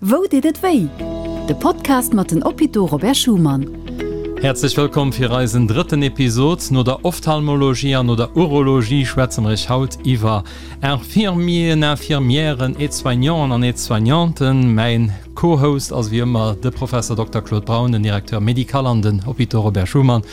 Wou deet et wéi? De Podcast mat den Hôpitaux Robert Schuman. Häerzlech wëllkomm fir eisen drëtten Episod. No der Ophtalmologie an no der Urologie schwätze mer iech haut iwwer Infirmieren, Infirmièren, Aide-soignanten an Aide-soignanten. Mäin Co-Host ass wéi ëmmer de Professor Dokter Claude Braun, den Directeur médical an den Hôpitaux Robert Schuman.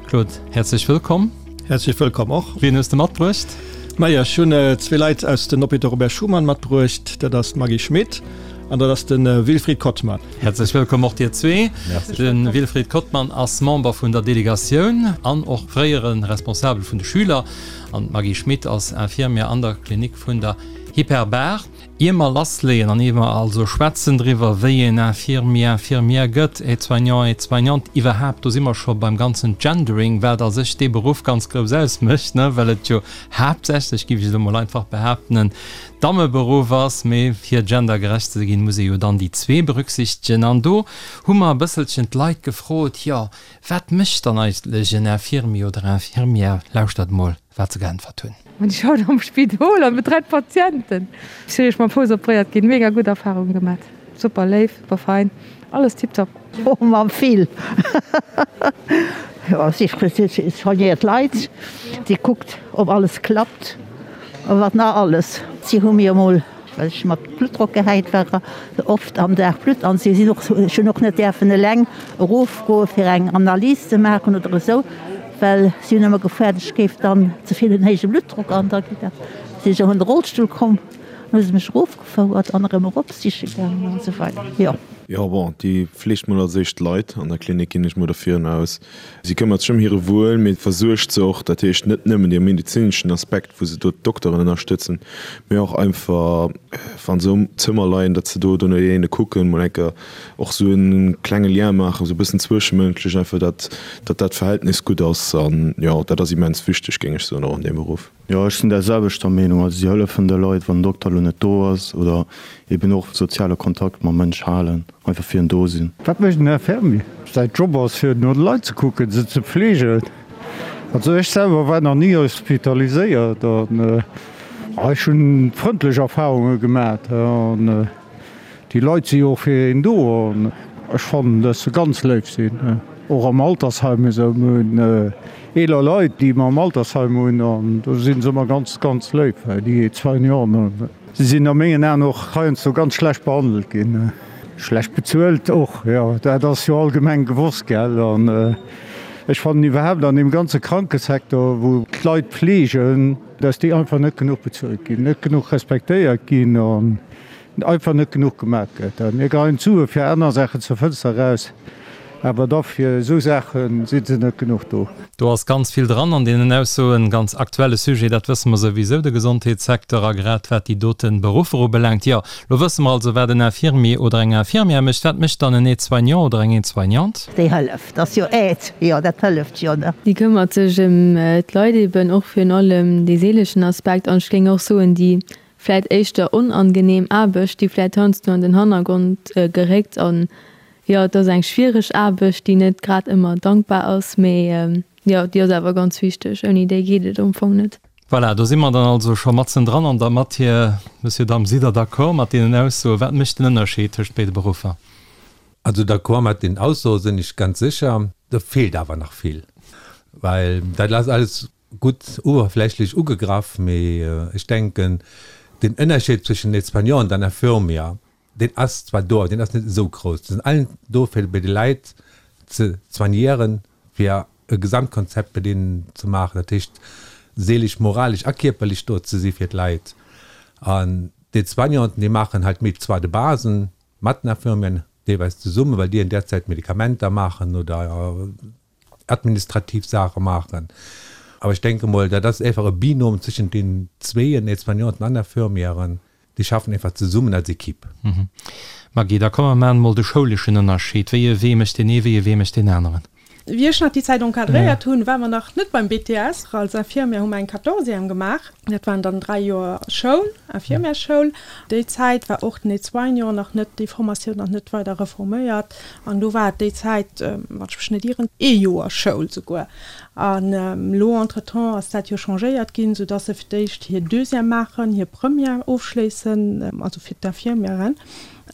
Claude, häerzlech wëllkomm. Häerzlech wëllkomm och. Wien hues de matbruecht? Majo, ech hunn zwee Leit aus den Hôpitaux Robert Schuman matbruecht. Dat ass d'Maggy Schmit an dat ass de Wilfried Kottmann. Häerzlech wëllkomm och dir zwee. De Wilfried Kottmann ass Member vun der Delegatioun an och fréiere Responsabel vun de Schüler. An d'Maggy Schmit ass Infirmière an der Klinik vun der Hyperbar. Ier mer lassleeën an ier mer also schwätzen driwwer, wéi een Infirmier, Infirmière gëtt, Aide-soignant, Aide-soignante, iwwerhaapt, do si mer scho beim ganzen Gendering, wat a sech dee Beruff ganz grouss ausmécht, ne, well et jo haaptsächlech, géif ech elo mol einfach behaapten, en Dammeberuff ass, mee fir gendergerecht ze ginn, muss ee jo dann déi zwee berücksichtegen. An do hu mer e bësselchen d'Leit gefrot, jo, wat mécht dann eigentlech en Infirmier oder Infirmière? Lauschtert mol. wat se geäntwert hunn. Ech schaffen am Spidol an betreien d'Patienten. Ech si mam Fouss opréiert ginn, mega gutt Erfahrungen gemat, super léif, super fein, alles tiptop. Oh ma vill! Jo, si soignéiert d'Leit, si kuckt ob alles klappt a wat nach alles. Si hu mir emol well ech mat Bluttdrock gehäit war, oft am Dag Blutt an si sinn och, ech hunn och net däerfen eleng erofgoe fir eng Analys ze maachen oder esou, well si hunn ëmmer gefaart, ech géif dann ze vill en héije Bluttdrock an da geet dat. Sinn ech och an de Rollstull komm, dann hu se mech erofgefouert an erëm erop siche gaangen an esou weider, jo. Jo, bon, déi fleegt mol als éischt d'Leit an der Klinik, ginn ech mol dervirun aus. Si këmmert sech ëm hire Wuel, mee versuergt se och, dat heescht net nëmmen dee medezineschen Aspekt, wou se do d'Dokteren ënnerstëtzen, mee och einfach, wa se um Zëmmer leien, datt se do no deene kucken, mol eng Kéier och esou e klenge Lien maachen, esou e bëssen zwëschemënschlech einfach, datt datt dat Verhältnis gutt ass. An jo, dat ass immens wichteg, géing ech soen, och an deem Beruff. Jo, ech sinn där selwechter Meenung. Also si hëllefen de Leit, wann den Dokter elo net do ass oder eben och soziale Kontakt mam Mënsch halen, einfach fir en do sinn. Wat mécht en Infirmier? Säi Job ass fir no de Leit ze kucken, se ze fleegen. Also ech selwer war nach ni hospitaliséiert an ech hunn frëndlech Erfahrunge gemat an Déi Leit si jo och fir een do an ech fannen, dass se ganz léif sinn. Och am Altersheim esou. Mir hunn eeler Leit, déi mer am Altersheim hunn an do si se ëmmer ganz, ganz léif, déi Soignanten. Se sinn a mengen Aen och heiansdo ganz schlecht behandelt ginn. Schlecht bezuelt och, jo, dat ass jo allgemeng gewosst, gell. An ech fannen iwwerhaapt an deem ganze Krankesecteur, wou d'Leit fleegen, dass déi einfach net genuch bezuelt ginn, net genuch respektéiert ginn an Einfach net genuch gemaach gëtt. Mir geheien d'Sue fir aner Saachen zur Fënster eraus, awer da fir esou Saache si se net genuch do. Do ass ganz vill dran an deenen Aussoen. Ganz aktuelle Sujet, dat wësse mer souwisou, de Gesondheetssecteur a grad wat déi dote Beruffer ubelaangt. Jo, lo wësse mer also, wat en Infirmier oder eng Infirmière mécht. Wat mécht dann en Aide-soignant oder eng Aide-soignante? Déi hëlleft, ass jo Aide, jo dat hëlleft jo, ne. Déi këmmert sech ëm d'Leit eben, och virun allem dee seeleschen Aspekt an ech géing och soen, déi vläit éischter onangenehm Aarbecht, déi vläit heiansdo an den Hannergrond geréckt an jo, et ass eng schwiereg Aarbecht, déi net grad ëmmer dankbar ass, mee jo, déi ass awer ganz wichteg, ouni déi geet et am Fong net. Voilà, do si mer dann also scho matzendran an der Matière. Monsieur, Damm, sidd Der d'accord mat deenen Aussoen? Wat mécht den Ënnerscheed tëscht béide Beruffer? Also d'accord mat den Aussoe sinn ech ganz sécher. Do feelt awer nach vill, well dat ass alles Gutt uewerflächlech ugegraff, mee ech denken, den Ënnerscheed zwëschen Aide-soignant an Infirmier, deen ass zwar do, awer deen ass net esou grouss. Se sinn allen do, fir bei de Leit ze soignieren, fir e Gesamtkonzept bei deenen ze maachen, dat heescht seelesch, moralesch a kierperlech do ze si fir d'Leit. An d'Aide-soignanten, déi maachen halt méi zwar de Basen mat den Infirmieren deelweis zesummen, well déi an där Zäit Medikamenter maachen oder administrativ Saache maachen. Awer ech denke mol, dat ass einfach e Binôme zwëschent deenen zweeën, Aide-soignanten an Infirmièren, déi schaffen einfach zesummen als Equipe. Maggy, da komm mer maachen emol de schouleschen Ënnerscheed. Wéi e Wee mécht deen ee, wéi e Wee mécht deen aneren? Wéi ech nach déi Zäit encadréiert hunn, ware mer nach net beim BTS. Als Infirmière hu mer eng Quatorzième gemaach. Dat waren dann 3 Joer Schoul, Infirmièrsschoul. Déi Zäit war och den Aide-soignant nach net, déi Formatioun nach net weider reforméiert. An do war et déi Zäit, wann ech mech net ieren, ee Joer Schoul souguer. An elo entretemps ass dat jo changéiert ginn, soudass se fir d'éischt hir Deuxième maachen, hir Première ofschléissen, also fir d'Infirmièren.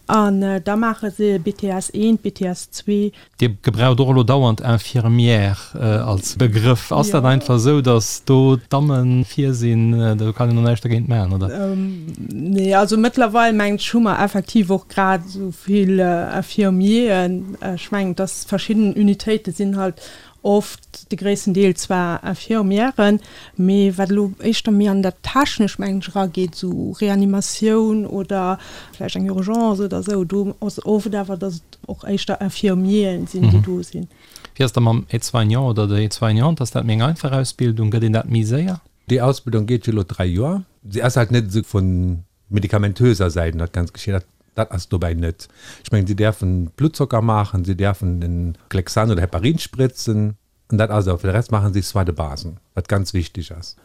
An da maache se BTS 1, BTS 2. Dir gebraucht och elo dauernd Infirmière als Begrëff. Ass dat einfach esou, datt do d'Damme vir sinn? Do kann een och näischt dergéint maachen, oder? Nee, also mëttlerweil mengen ech hu mer effektiv och grad esou vill Infirmieren. Ech mengen, datt verschidden Unitéite sinn halt oft de gréissten Deel zwar Infirmièren, mee wat elo éischter méi an dat Technescht, mengen ech, erageet, esou Reanimatioun oder vläicht eng Urgence oder esou, do ass oft awer, datt et och éischter Infirmieren sinn, déi do sinn. Wéi ass da mam Aide-soignant oder der Aide-soignante? Ass dat méi eng einfach Ausbildung? Gëtt een dat méi séier? Déi Ausbildung geet jo elo 3 Joer. Si ass halt net esou vun medikamentöser Säit dat ganz geschéien. Dat, dat ass dobäi net. Ech mengen, si däerfen Bluttzocker maachen, si däerfen den Clexane oder Heparin spritzen, an dat ass et. Fir de Rest maachen si Soins de base, wat ganz wichteg ass.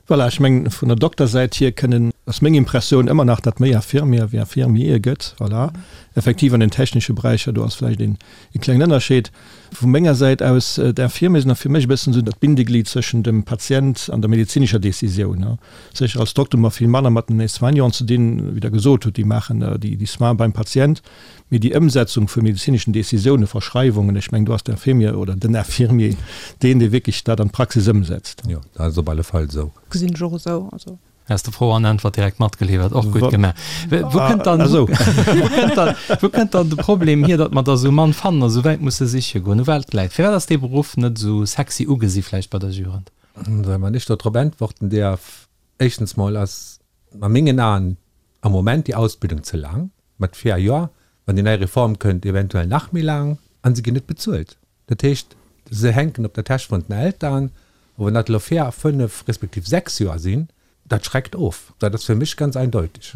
Voilà, ech mengen, vun der Doktersäit hier kënnen, ass meng Impressioun ëmmer nach, datt méi Infirmier wéi Infirmiere gëtt. Voilà, effektiv an den technesche Beräicher, do ass vläicht een, ee klengen Ënnerscheed. Vu menger Säit aus, d'Infirmier sinn och fir mech e bëssen esou dat Bindeglied zwëschen dem Patient an der medezinescher Décisioun. Sécher, als Dokter hu mer vill manner mat den Soignanten ze dinn, wéi Der gesot hutt, déi maachen déi Soins beim Patient, mee déi Ëmsetzung vu medezineschen Décisiounen, Verschreiwungen, ech mengen, do ass d'Infirmier oder den Infirmier deen, dee wierklech dat an d'Praxis ëmsetzt. Jo, dat ass op alle Fall esou. Gesinn ech och esou. Also. Has de Fro an Äntwert direkt matgeliwwert, och gutt gemaach. Wou kënnt dann, wou kënnt dann, wou kënnt dann de Problem hier, datt mer der esou mann fannen a sou wäit musse siche goen? U wat läit? Firwat ass dee Beruff net esou sexy ugesi vläicht bei der Jugend? Wann ech do drop äntworten däerf, éischtens mol ass a mengen Aen am Moment déi Ausbildung ze laang, mat 4 Joer, wann déi nei Reform kënnt, eventuell nach méi laang, a se ginn net bezuelt. Dat heescht, se hänken op der Täsch vun den Eltern. A wann dat elo 4, 5 respektiv 6 Joer sinn, dat schreckt of. Dat ass fir mech ganz eindeutig.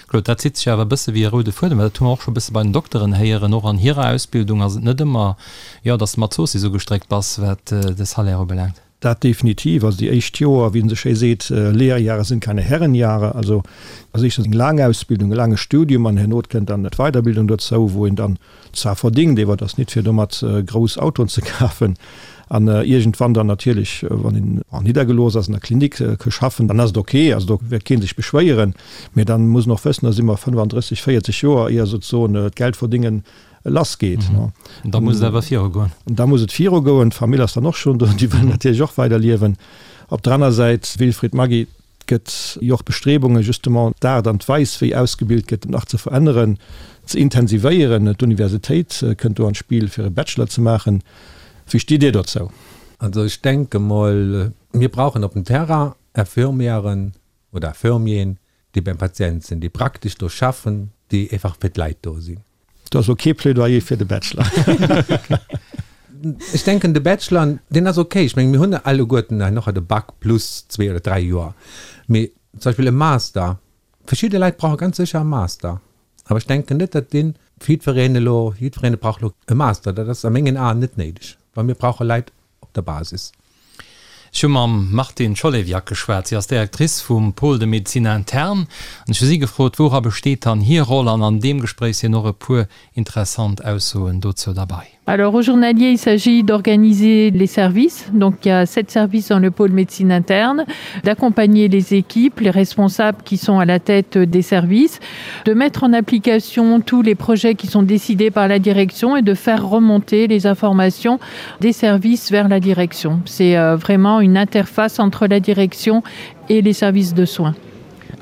Claude, dat zitt sech awer e bësse wéi e roude Fuedem, well dat hu mer och scho e bësse bei den Dokteren héieren, och an hirer Ausbildung ass et net ëmmer, jo, datt s de mat Zoossiss ugestréckt bass, wat de Salaire ubelaangt. Dat definitiv. Also déi éischt Joer, wéi en esou schéi seet, Lehrjahre sind keine Herrenjahre. Also ass éischtens eng laang Ausbildung, e laange Studium an herno kënnt dann d'Weiderbildung dozou, wou een dann zwar verdingt, ewer et ass nit fir domat grouss Autoen ze kafen an iergendwann dann natierlech, wann een niddergelooss ass, an der Klinik ke schaffen, dann ass et ok, also do wäert kee sech beschwéieren, mee dann muss en och wëssen, da si mer 35, 40 Joer ier souzesoen d'Geldverdingen lass geet. An da muss et awer virugoen. An da muss et virugoen. D'Famill ass dann och schonn do, déi wëllen natierlech och weiderliewen. Op der aner Säit, Wilfried Maggy, Et gëtt jo och Bestrebungen, justement d'Aart an d'Weis, wéi ausgebilt gëtt, nach ze veränneren, ze intensivéieren. D'Universitéit kënnt do an d'Spill, fir e Bachelor ze maachen. Wéi stitt Dir dozou? Also ech denke mol, mir brauchen op dem Terrain Infirmièren oder Infirmieren, déi beim Patient sinn, déi praktesch do schaffen, déi einfach fir d'Leit do sinn. Do ass elo kee Plädoyer fir de Bachelor. Ech denken, de Bachelor, deen ass okay. Ech mengen, mir hunn alleguerten herno de Bac plus zwee oder dräi Joer. Mee zum Beispill e Master, verschidde Leit brauche ganz sécher e Master. Awer ech denken net, datt dee fir jiddwereen elo, jiddwereen brauch elo e Master. Dat ass a mengen Aen net néideg, well mir brauche Leit op der Basis. Ech hu mam Martine Cholewiak geschwat. Si ass Directrice vum Pôle de médecine interne an ech hu si gefrot, woura besteet dann hir Roll an an deem Gespréich sinn och e puer interessant Aussoen dozou derbei. Alors au journalier, il s'agit d'organiser les services, donc il y a sept services dans le pôle médecine interne, d'accompagner les équipes, les responsables qui sont à la tête des services, de mettre en application tous les projets qui sont décidés par la direction et de faire remonter les informations des services vers la direction. C'est euh, vraiment une interface entre la direction et les services de soins.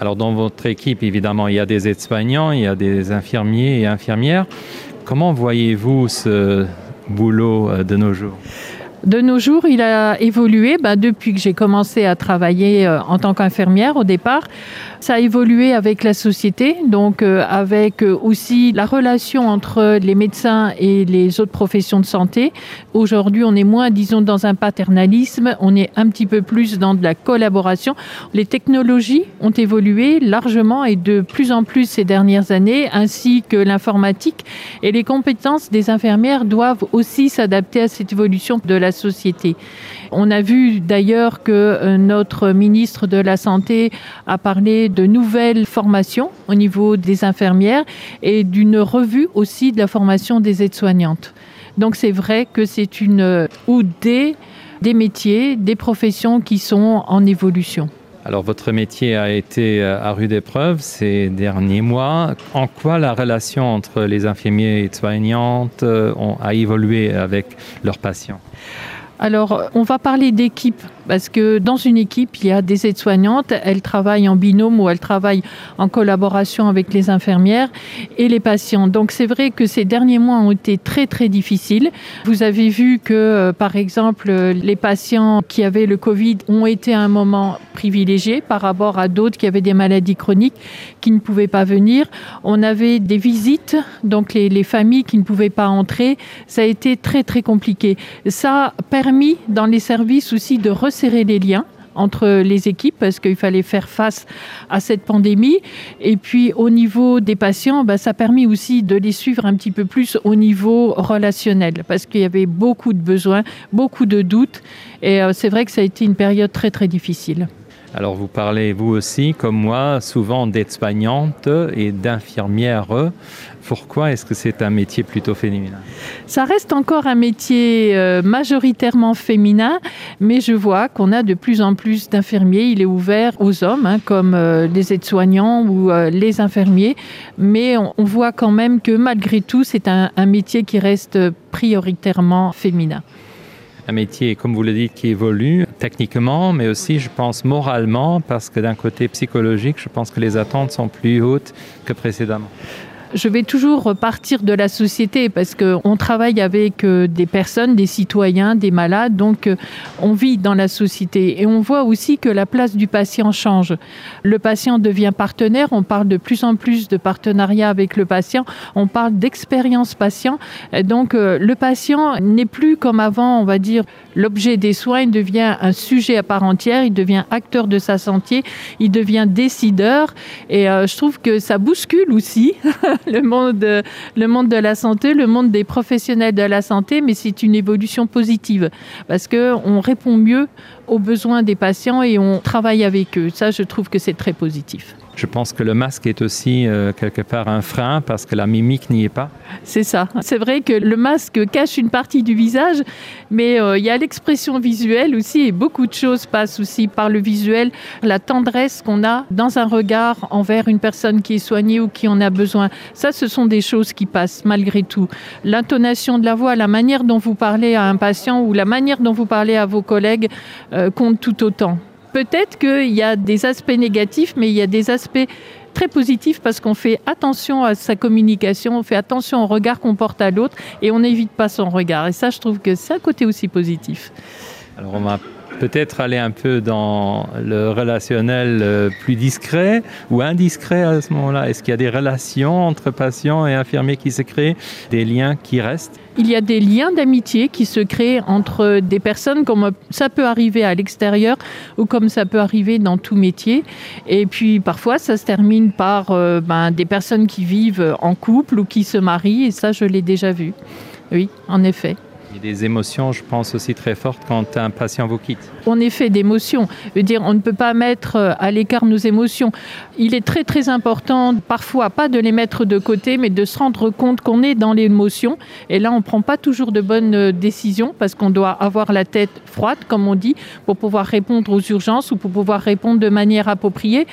Alors dans votre équipe, évidemment, il y a des aides-soignants, il y a des infirmiers et infirmières. Comment voyez-vous ce boulot euh, de nos jours De nos jours, il a évolué bah, depuis que j'ai commencé à travailler euh, en tant qu'infirmière au départ. Ça a évolué avec la société, donc euh, avec euh, aussi la relation entre les médecins et les autres professions de santé. Aujourd'hui, on est moins disons dans un paternalisme, on est un petit peu plus dans de la collaboration. Les technologies ont évolué largement et de plus en plus ces dernières années, ainsi que l'informatique et les compétences des infirmières doivent aussi s'adapter à cette évolution de la société. On a vu d'ailleurs que euh, notre ministre de la Santé a parlé de nouvelles formations au niveau des infirmières et d'une revue aussi de la formation des aides-soignantes. Donc c'est vrai que c'est une euh, ou des, des métiers, des professions qui sont en évolution. Alors votre métier a été euh, à rude épreuve ces derniers mois. En quoi la relation entre les infirmiers et soignantes euh, ont, a évolué avec leurs patients Alors on va parler d'équipe parce que dans une équipe, il y a des aides-soignantes, elles travaillent en binôme ou elles travaillent en collaboration avec les infirmières et les patients. Donc c'est vrai que ces derniers mois ont été très très difficiles. Vous avez vu que euh, par exemple les patients qui avaient le Covid ont été à un moment privilégié par rapport à d'autres qui avaient des maladies chroniques qui ne pouvaient pas venir. On avait des visites, donc les, les familles qui ne pouvaient pas entrer, ça a été très très compliqué. Ça a permis dans les services aussi de resserrer les liens entre les équipes parce qu'il fallait faire face à cette pandémie et puis au niveau des patients ben, ça a permis aussi de les suivre un petit peu plus au niveau relationnel parce qu'il y avait beaucoup de besoins beaucoup de doutes et euh, c'est vrai que ça a été une période très très difficile. Alors vous parlez vous aussi comme moi souvent d'aides-soignantes et d'infirmières. Pourquoi est-ce que c'est un métier plutôt féminin? Ça reste encore un métier euh, majoritairement féminin, mais je vois qu'on a de plus en plus d'infirmiers. Il est ouvert aux hommes hein, comme euh, les aides-soignants ou euh, les infirmiers, mais on, on voit quand même que malgré tout c'est un, un métier qui reste prioritairement féminin un métier comme vous le dites qui évolue techniquement mais aussi je pense moralement parce que d'un côté psychologique je pense que les attentes sont plus hautes que précédemment je vais toujours partir de la société parce qu'on travaille avec euh, des personnes, des citoyens, des malades, donc euh, on vit dans la société et on voit aussi que la place du patient change. Le patient devient partenaire, on parle de plus en plus de partenariat avec le patient, on parle d'expérience patient. Donc euh, le patient n'est plus comme avant, on va dire l'objet des soins, il devient un sujet à part entière, il devient acteur de sa santé, il devient décideur et je trouve que ça bouscule aussi le monde, le monde de la santé, le monde des professionnels de la santé, mais c'est une évolution positive parce qu'on répond mieux aux besoins des patients et on travaille avec eux. Ça, je trouve que c'est très positif. Je pense que le masque est aussi euh, quelque part un frein parce que la mimique n'y est pas. C'est ça. C'est vrai que le masque cache une partie du visage, mais euh, il y a l'expression visuelle aussi et beaucoup de choses passent aussi par le visuel, la tendresse qu'on a dans un regard envers une personne qui est soignée ou qui en a besoin. Ça, ce sont des choses qui passent malgré tout. L'intonation de la voix, la manière dont vous parlez à un patient ou la manière dont vous parlez à vos collègues euh, compte tout autant peut-être qu'il y a des aspects négatifs, mais il y a des aspects très positifs parce qu'on fait attention à sa communication, on fait attention au regard qu'on porte à l'autre et on n'évite pas son regard. Et ça, je trouve que c'est un côté aussi positif. Alors on va peut-être aller un peu dans le relationnel euh, plus discret ou indiscret à ce moment-là. Est-ce qu'il y a des relations entre patients et infirmiers qui se créent, des liens qui restent? Il y a des liens d'amitié qui se créent entre des personnes comme ça peut arriver à l'extérieur ou comme ça peut arriver dans tout métier. Et puis parfois ça se termine par euh, ben, des personnes qui vivent en couple ou qui se marient et ça je l'ai déjà vu. Oui, en effet. Il y a des émotions, je pense aussi très fortes quand un patient vous quitte. On est fait d'émotions. Je veux dire, on ne peut pas mettre euh, à l'écart nos émotions. Il est très très important parfois pas de les mettre de côté, mais de se rendre compte qu'on est dans l'émotion. Et là, on ne prend pas toujours de bonnes euh, décisions parce qu'on doit avoir la tête froide, comme on dit, pour pouvoir répondre aux urgences ou pour pouvoir répondre de manière appropriée.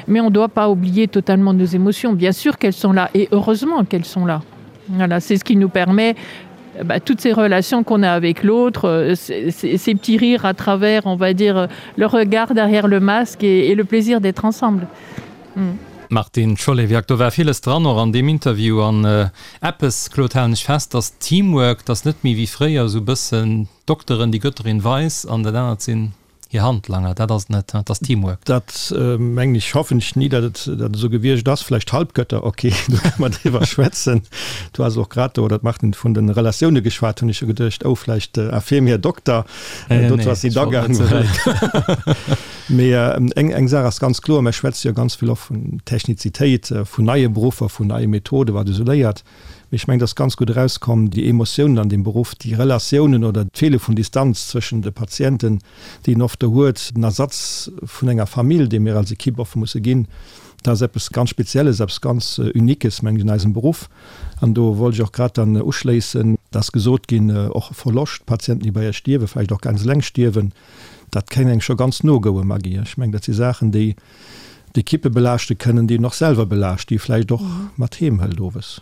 Mais on ne doit pas oublier totalement nos émotions. Bien sûr qu'elles sont là et heureusement qu'elles sont là. Voilà, c'est ce qui nous permet bah, toutes ces relations qu'on a avec l'autre, euh, ces, ces petits rires à travers, on va dire, le regard derrière le masque et, et le plaisir d'être ensemble. Mm. Martine Cholewiak, do war villes dran och an deem Interview an äh, eppes, Claude, halen ech fest, dass Teamwork, dass net méi wéi fréier esou bëssen d'Dokteren, déi Götterin weis an dat anert sinn Hir Handlanger, dat ass et net, dat ass Teamwork. Dat mengen ech, hoffen ech ni, datt et dat esou gewiescht ass. Vläicht Halbgötter, ok, do kënne mer driwwer schwätzen. Du has och grad do, oder d'Martine, vun de Relatioune geschwat, hunn ech jo geduecht, oh, vläicht Infirmier, Dokter, dozou ass si da gaang. Mee eng eng Saach ass ganz kloer, Mir schwätze jo ganz vill och vun Technizitéit, vun neie Beruffer, vun neie Methoden, wat esou léiert. Mee ech mengen, et ass ganz gutt erauskomm, déi Emotiounen an deem Beruff, déi Relatiounen oder d'Feele vun Distanz zwëschen de Patienten, déi een oft do huet, den Ersatz vun enger Famill, dee mir als Equipe oft musse ginn. Dat ass eppes ganz Spezielles, eppes ganz Uniques, mengen ech, an eisem Beruff. An do wollt ech och grad dann uschléissen, et ass gesot ginn, och Verloscht, Patienten, déi bei Iech stierwen, vläicht och ganz eleng stierwen, dat kéint engem scho ganz no goen, Maggy. Ech mengen, dat si Saachen, déi d'Ekippe belaaschte kënnen, déi een och selwer belaascht, déi ee vläicht och mat heem hëlt owes.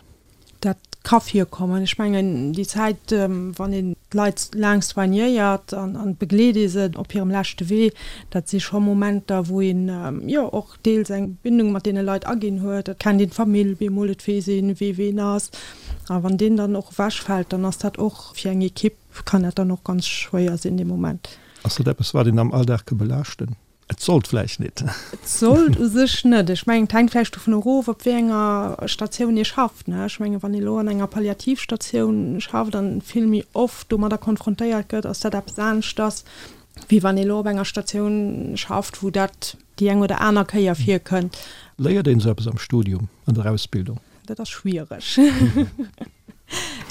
Dat ka virkommen. Ech mengen, déi Zäit, wann een d'Leit laang soignéiert an begleet ee se op hirem leschte Wee, dat si scho Momenter, wou een, jo, och deels eng Bindung mat deene Leit aginn huet. Et kennt een d'Famill bemol, et weess een, wee ween ass. A wann deen dann och ewechfält, dann ass dat och fir eng Ekipp, kann dat dann och ganz schwéier sinn dee Moment. Ass dat eppes, wat een am Alldag ka belaaschten? Et sollt vläicht nit. Et sollt u sech net. Ech mengen, et hänkt vläicht dovun erof, op wéi enger Statioun ee schafft, ne. Ech mengen, wann ee elo an enger Palliativstatioun schafft an vill méi oft domadder konfrontéiert gëtt, ass dat eppes aneschters, wéi wann ee elo op enger Statioun schafft, wou dat déi eng oder aner Kéier virkënnt. Léiert een esou eppes am Studium, an der Ausbildung? Dat ass schwiereg.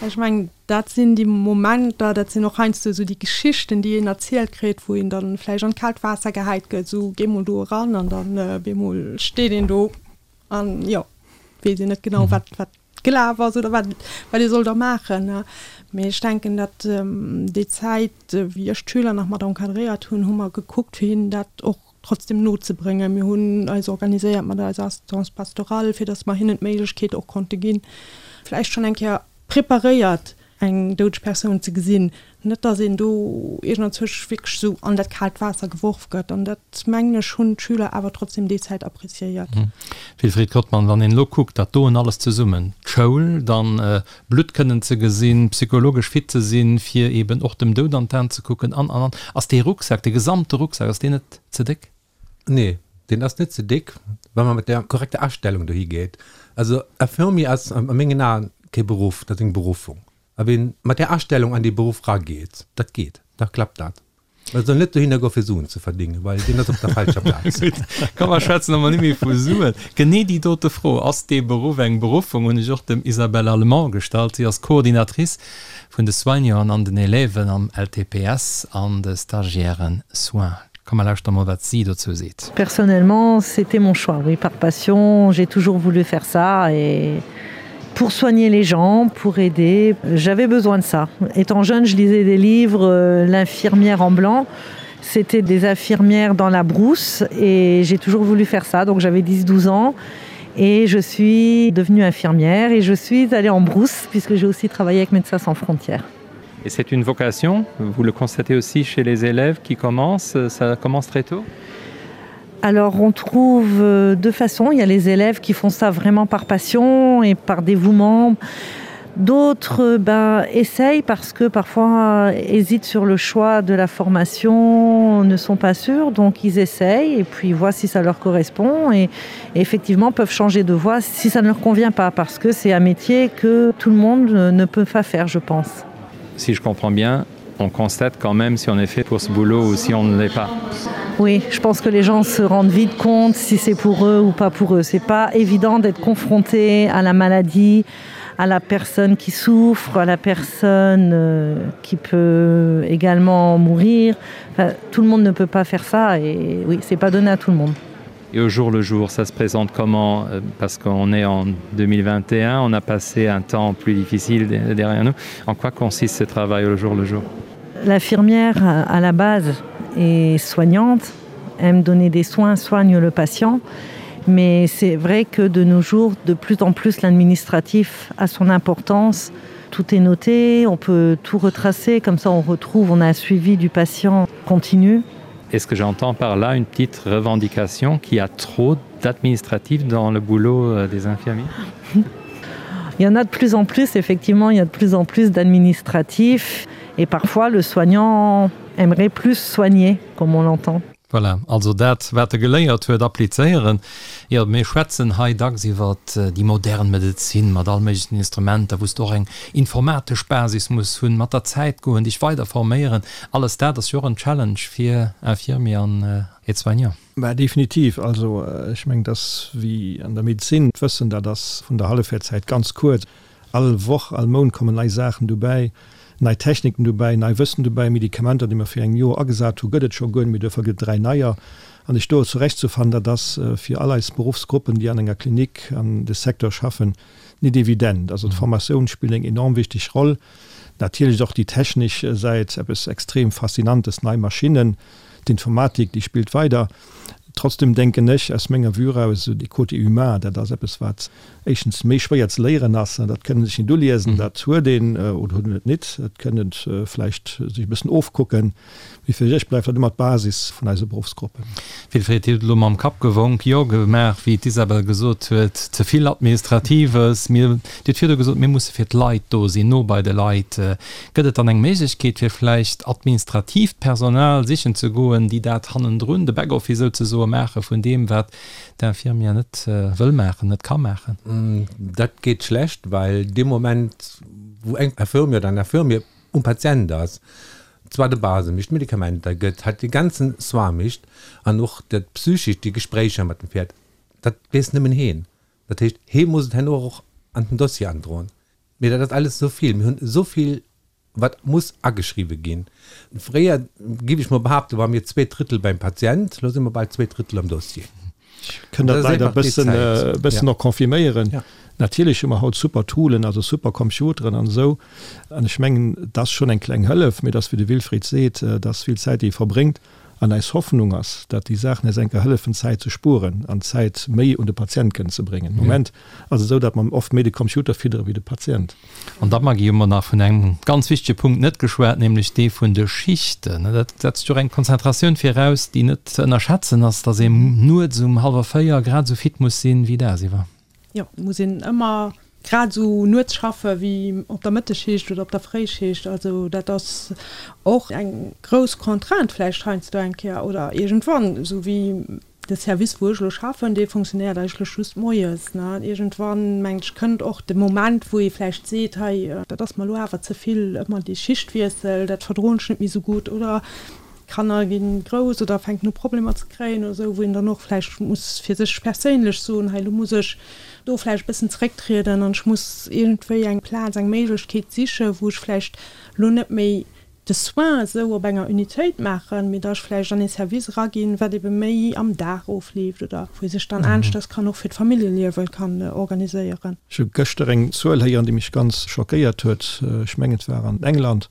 Ech mengen, dat sinn déi Momenter, dat sinn och heiansdo esou déi Geschichten, déi een erzielt kritt, wou een dann vläicht an d'kaalt Waasser gehäit gëtt, esou géi mol do eran an dann bemol steet een do an jo, weess een net genau, wat wat gelaf ass oder wat wat ee soll da maachen. Mee ech denken, datt déi Zäit, wéi ech d'Schüler nach mat encadréiert hunn, hu mer gekuckt, fir hinnen dat och trotzdem nozebréngen. Mir hunn eis organiséiert mat eiser Assistance pastorale, fir datt mer hinnen d'Méiglechkeet och konnte ginn, vläicht schonn eng Kéier preparéiert eng doudeg Persoun ze gesinn. Net datt een do iergendanzwousch wierklech esou an dat kaalt Waasser geworf gëtt. An dat, mengen ech, hunn d'Schüler awer trotzdem déi Zäit appréciéiert. Wilfried Kottmann, Wann een elo kuckt, dat doen alles zesummen, d'Schoul, dann Blutt kënnen ze gesinn, psychologesch fit ze sinn, fir eben och dem Doud an d'Aen ze kucken an, an, an. Ass dee Rucksak, dee gesamte Rucksak, ass deen net ze déck? Nee, deen ass net ze déck, wa mer mat der korrekter Astellung dohi geet. Also Infirmier ass a mengen Aen kee Beruff, dat ass eng Beruffung. A ween mat där Astellung an dee Beruff rageet, dat geet, da klappt dat. Et soll net dohinner goen, fir Suen ze verdingen, well deen ass op der falscher Plaz. Gutt, komm mer schwätzen emol net méi vu Suen. Genee déi dote Fro, Ass dee Beruff eng Beruffung, hunn ech och dem Isabelle Allemand gestallt. Si ass Coordinatrice vun de Soignanten an den Élèven am LTPS an de Stagiairen Soins. Komm mer lauschteren emol, wat si dozou seet. Personnellement, c'était mon choix, oui, par passion, j'ai toujours voulu faire ça et pour soigner les gens, pour aider. J'avais besoin de ça. Étant jeune, je lisais des livres euh, l'infirmière en blanc. C'était des infirmières dans la brousse et j'ai toujours voulu faire ça. Donc j'avais 10-12 ans et je suis devenue infirmière et je suis allée en brousse puisque j'ai aussi travaillé avec Médecins sans frontières. Et c'est une vocation, vous le constatez aussi chez les élèves qui commencent, ça commence très tôt? Alors on trouve euh, deux façons, il y a les élèves qui font ça vraiment par passion et par dévouement. D'autres ben, essayent parce que parfois hésitent sur le choix de la formation, ne sont pas sûrs, donc ils essayent et puis voient si ça leur correspond et, et effectivement peuvent changer de voie si ça ne leur convient pas parce que c'est un métier que tout le monde ne peut pas faire, je pense. Si je comprends bien, on constate quand même si on est fait pour ce boulot ou si on ne l'est pas. Oui, je pense que les gens se rendent vite compte si c'est pour eux ou pas pour eux. C'est pas évident d'être confronté à la maladie, à la personne qui souffre, à la personne euh, qui peut également mourir. Enfin, tout le monde ne peut pas faire ça et oui, c'est pas donné à tout le monde. Et au jour le jour, ça se présente comment euh, Parce qu'on est en 2021, on a passé un temps plus difficile derrière nous. En quoi consiste ce travail au jour le jour L'infirmière à la base est soignante, aime donner des soins, soigne le patient. Mais c'est vrai que de nos jours, de plus en plus l'administratif a son importance. Tout est noté, on peut tout retracer, comme ça on retrouve, on a un suivi du patient continu. Est-ce que j'entends par là une petite revendication qui a trop d'administratifs dans le boulot euh, des infirmiers Il y en a de plus en plus, effectivement, il y a de plus en plus d'administratifs et parfois le soignant aimerait plus soigner, comme on l'entend. Voilà, also dat, wat e geléiert huet, applizéieren. Jo, mir schwätzen hei dacks iwwer déi modern Medezin mat all méiglechen Instrumenter, wou s de och eng informatesch Basis muss hunn, mat der Zäit goen, dech weider forméieren. Alles dat ass jo och en Challenge fir Infirmier an Aide-soignant. Mä definitiv. Also ech mengen, dass wéi an der Medezin, d'Wëssen, dat ass vun der Hallefwäertszäit ganz kuerz. All Woch, all Mount kommen nei Saachen dobäi, nei Techniken dobäi, nei Wëssen dobäi. Medikamenter, déi mer vir engem Joer agesat hu, gëtt et scho guer net méi, duerfir gëtt et 3 neier. An sech do zurechtzufannen, dat ass fir all eis Beruffsgruppen, déi an enger Klinik an de Secteur schaffen, nit evident. Also d'Formatioun spillt eng enorm wichteg Roll. Natierlech och déi technesch Säit, eppes extrem Faszinantes, nei Maschinnen, d'Informatik, déi spillt weider. Trotzdem denken ech aus menger Vue eraus, esou dee Côté humain, dat ass eppes, wat éischtens méi schwéier ze léieren ass, dat kënnt ee sech nit uliesen, dat huet een oder huet een et nit, dat kënnt een vläicht sech e bëssen ofkucken. Mee fir ech bleift dat ëmmer d'Basis vun eise Beruffsgruppen. Wilfried, Dir hutt elo mam Kapp gewonk, Jo gemaach, wéi d'Isabel gesot huet, ze vill Administratives. Mir, Dir hutt virdu gesot, mir musse fir d'Leit do sinn, no bei de Leit. Gëtt et dann eng Méiglechkeet, fir vläicht administratiivt Personal sichen ze goen, déi dat hannendrun, de Backoffice souzesoe maache vun deem, wat d'Infirmière net wëll maachen, net ka maachen? Dat geet schlecht, well dee Moment, wou eng Infirmière oder en Infirmier um Patient ass, zwar de Base mécht, d'Medikamenter gëtt, halt dee ganzen Soin mécht an och dat psychescht, déi Gespréicher mat dem Pferd, dat weess nëmmen heen. Dat heescht, hee muss et herno och an den Dossier androen. Mee dat ass alles esou vill, mir hunn esou vill, wat muss ageschriwwe ginn. Fréier, géif ech mol behaapten, ware mir zwee Drëttel beim Patient, elo si mer bal zwee Drëttel am Dossier. Ech kënn dat leider e bëssen och confirméieren. Natierlech hu mer haut super Toolen, also super Computeren an esou. An ech mengen, et ass schonn eng kleng Hëllef, mee et ass, wéi de Wilfried seet, et ass vill Zäit, déi ee verbréngt. An eis Hoffnung ass, dat déi Saachen eis enker hëllefen, Zäit ze spueren an Zäit méi un de Patient kënnen ze bréngen. Am Moment ass et esou, dat mer oft méi de Computer fiddere wéi de Patient. An da, Maggy, hu mer nach vun engem ganz wichtege Punkt net geschwat, nämlech dee vun de Schichten. Dat setzt jo och eng Konzentratioun viraus, déi net ze ënnerschätzen ass, dass een nuets um hallwer 4 grad esou fit muss sinn wéi dagsiwwer. Jo, et muss een ëmmer grad esou nuets schaffe wéi op der Mëttesschicht oder op der Fréischicht. Also dat ass och eng grouss Contrainte vläicht heiansdo eng Kéier oder iergendwann, esou wéi De Service, wou ech elo schaffen, dee funktionéiert eigentlech just moies. Iergendwann, mengen ech, kënnt och de Moment, wou ee vläicht seet, hei, dat ass mer elo awer ze vill, ëmmer dee Schichtwiessel, dat verdroen ech net méi esou gutt. Oder d'Kanner gi grouss oder fänken u Problemer ze kréien oder esou, wou een dann och vläicht muss fir sech perséinlech soen, hei, elo muss ech do vläicht e bëssen zerécktrieden an ech muss iergendwéi eng Plaz, eng Méiglechkeet sichen, wou ech vläicht elo net méi de Soin esou op enger Unitéit maachen, mee da ech vläicht an ee Service eraginn, wat ebe méi am Dag ofleeft oder wou ee sech dann aneschters kann och fir d'Familljeliewe kann organiséieren. Ech hu gëschter eng Zuel héieren, déi mech ganz schockéiert huet. Ech mengen, et war an England,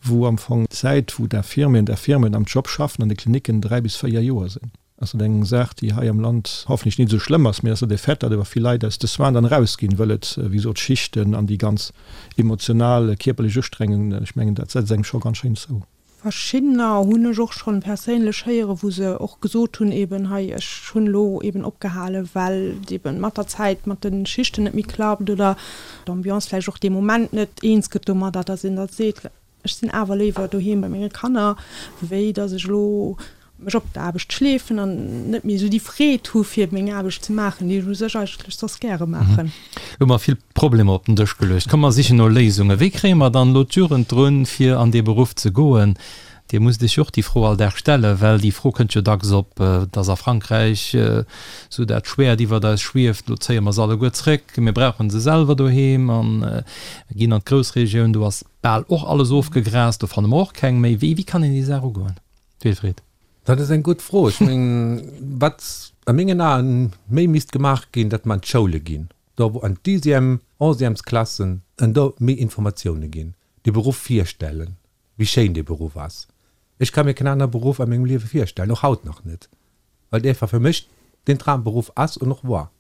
wou am Fong d'Zäit, wou d'Infirmieren, d'Infirmieren am Job schaffen an de Klinicken, 3 bis 4 Joer sinn. Ass dat eng Saach, déi hei am Land hoffentlech nit esou schlëmm ass, mee ass dat e Fait, datt awer vill Leit aus de Soins dann erausginn, wëll et, wéi gesot, Schichten an déi ganz emotional, kierperlech Ustrengung, ech mengen, dat setzt engem scho ganz schéin zou. Verschiddener hunn ech och schonn perséinlech héieren, wou se och gesot hunn, eben hei, ech hunn elo eben opgehalen, well et eben mat der Zäit mat de Schichten net méi klappt oder d'Ambiance vläicht och dee Moment net eens gëtt domadder, datt een da seet, Ech sinn awer léiwer doheem bei menge Kanner, wéi datt ech elo mech op d'Aarbecht schleefen an net méi esou déi Freed hu fir meng Aarbecht ze maachen, déi ech u sech eigentlech soss gäre maachen. Elo hu mer vill Problemer op den Dësch geluecht. Komm mer sichen no Léisungen. Wéi kréie mer dann elo d'Jugend drun, fir an dee Beruff ze goen? Dir musst Iech jo och déi Fro all Dag stellen, well déi Fro kënnt jo dacks op, dass a Frankräich esou dat Schwäert iwwert eis schwieft, elo zéie mer se alleguer zréck, mir brauche se selwer doheem a ginn an d'Groussregioun, do ass bal och alles ofgegrast, do fanne mer och keng méi. Wéi kann een déi Saach ugoen? Wilfried. Dat ass eng gutt Fro. Ech mengen, wat a mengen Aen méi misst gemaach ginn, datt mer an d'Schoule ginn, do wou an d'Dixième, Onzièmesklassen, an do méi Informatioune ginn, de Beruff virstellen, wéi schéin dee Beruff ass. Ech ka mir keen anere Beruff a mengem Liewe virstellen, och haut nach net, well et einfach fir mech den Dramberuff ass an och war.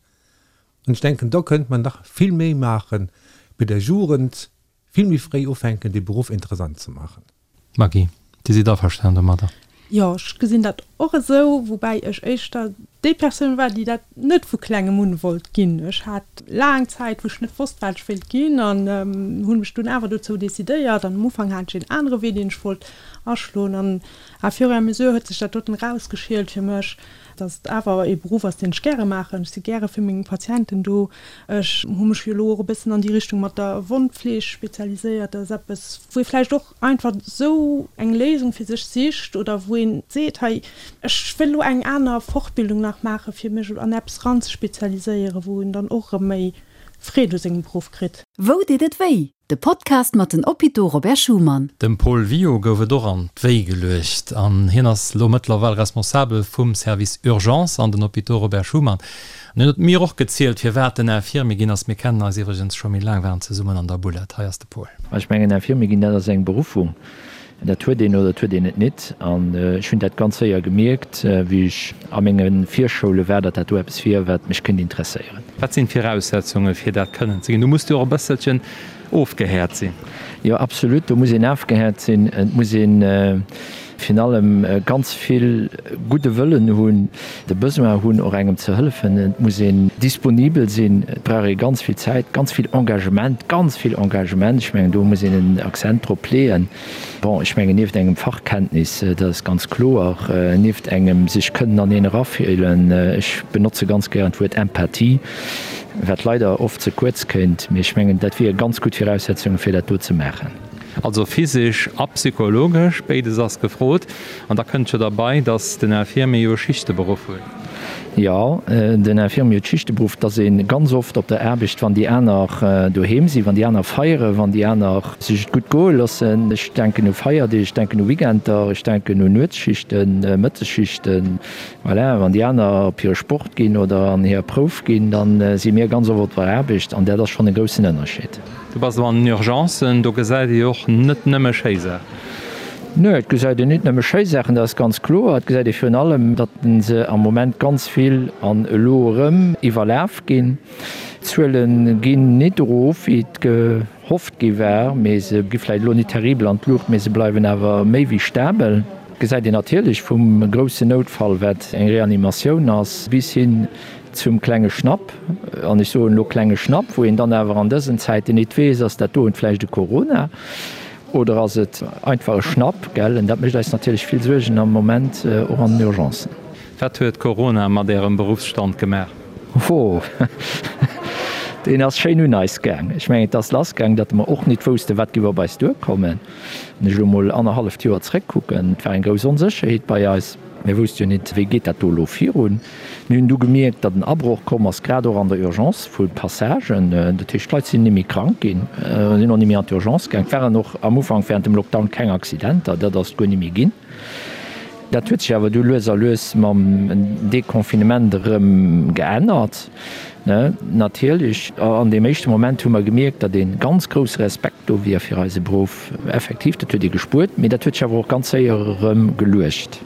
An ech denken, do kënnt mer nach vill méi maachen, bei der Jugend vill méi fréi ufänken, dee Beruff interessant ze maachen. Maggy, Dir sidd averstan domadder? Jo, ech gesinn dat och esou, woubäi ech éischter déi Persoun war, déi dat net vu klengem un wollt ginn. Ech hat laang Zäit, wou ech net wosst, wat ech wéilt ginn an hunn mech dunn awer dozou decidéiert. An am Ufank hat ech een anere Wee, deen ech wollt aschloen an à fur et à mesure huet sech dat doten erausgeschielt fir mech, dass et awer ee Beruff ass, deen ech gäre maachen. Ech si gäre fir meng Patienten do. Ech hu mech jo elo och e bëssen an déi Richtung mat der Wondfleeg spezialiséiert. Dat ass eppes, wou ee vläicht och einfach esou eng Léisung fir sech sicht oder wou een seet, hei, ech wëll elo eng aner Fortbildung nach maachen, fir mech an eppes eranzespezialiséieren, wou een dann och erëm méi. Freed u sengem Beruff kritt. Wou deet et wéi? De Podcast mat den Hôpitaux Robert Schuman. Dem Paul Wio gouf et och an d'Wéi geluecht an hien ass lo mëttlerweil Responsabel vum Service Urgence an den Hôpitaux Robert Schuman. An hien huet mir och gezielt, firwat en Infirmier ginn ass. Mir kennen eis iwwregens scho méi laang, waren zesummen an der Bulette. Hei ass de Paul. Ech mengen, Infirmier ginn, dat ass eng Beruffung. Dat huet een oder dat huet een et nit. An ech hunn dat ganz séier gemierkt, wéi ech a menge Virschoule war, datt dat do eppes wier, wat mech kéint interesséieren. Wat sinn d'Viraussetzunge fir dat kënnen ze ginn? Du muss jo och e bësselchen ofgehäert sinn. Jo, absolut, do muss een afgehäert sinn. Et muss ee virun allem ganz vill gudde Wëllen hunn, de Besoin hunn, och engem ze hëllefen. Et muss een disponibel sinn. Et brauch ee ganz vill Zäit, ganz vill Engagement, ganz vill Engagement. Ech mengen, do muss een en Accent drop leeën. Bon, ech mengen, nieft engem Fachkenntnis, dat ass ganz kloer, nieft engem sech kënnen an een erafillen, ech benotze ganz gären d'Wuert Empathie, wat leider oft ze kuerz kéint, mee ech mengen, dat wiere ganz gutt Viraussetzungen, fir dat do ze maachen. Also physesch a psychologesch, béides ass gefrot. An da kënnt jo derbei, datt den Infirmier jo e Schichteberuff huet. Jo, den Infirmier huet Schichteberuff. Et ass ee ganz oft op der Aarbecht, wann déi aner doheem sinn, wann déi aner feieren, wann déi aner sech et gutt goe loossen. Ech denken u Feierdeeg, ech denken u Weekender, ech denken un Nuetsschichten, Mëttesschichten. Voilà, wann déi aner op hire Sport ginn oder an hir Prouf ginn, da si mir ganz oft op der Aarbecht an dat ass schonn e groussen Ënnerscheed. Du bass elo an den Urgencen, do gesäit ee jo och net nëmme schéi Saachen. Nö, et gesäit een nit nëmme schéi Saachen, dat ass ganz kloer. Et gesäit ee virun allem, datt se am Moment ganz vill an elo erëm iwwerlaf ginn. D'Zuele ginn nit erof, wéi et gehofft gi war, mee se gi vläicht elo nit terribel an d'Luucht, mee se bleiwen awer méi wéi stabel. Et gesäit een natierlech vum groussen Noutfall, wat eng Reanimatioun ass, bis hin zum klenge Schnapp, an ech soen elo klenge Schnapp, wou een dann awer an dësen Zäiten nit weess, ass dat doen vläicht e Corona oder ass et einfach e Schnapp, gell? En dat mécht eis natierlech vill Suergen am Moment, och an den Urgencen. Wat huet Corona mat Ärem Beruffsstand gemaach? Ho, deen ass schéin un eis gaang. Ech mengen, et ass lassgaang, datt mer och nit woussten, wat géif op eis duerkommen. Wann ech elo mol annerhalleft Joer zréckkucken, et war eng grouss Onsécherheet bei eis. Mir wousste jo nit, wéi geet dat do elo virun. Mir hunn du gemierkt, datt en Abroch komm ass, grad och an der Urgence vu Passagen. Dat heescht, d'Leit sinn ni méi krank ginn, sinn och ni méi an d'Urgence gaang. Et waren och am Ufank während dem Lockdown keng Accidenter, dat ass guer ni méi ginn. Dat huet sech awer du lues a lues mam Deconfinement erëm geännert. Natierlech, an deem éischte Moment hu mer gemierkt, datt ee ganz grousse Respekt do wier fir eise Beruff. Effektiv, dat huet ee gespuert, mee dat huet sech awer och ganz séier erëm geluecht.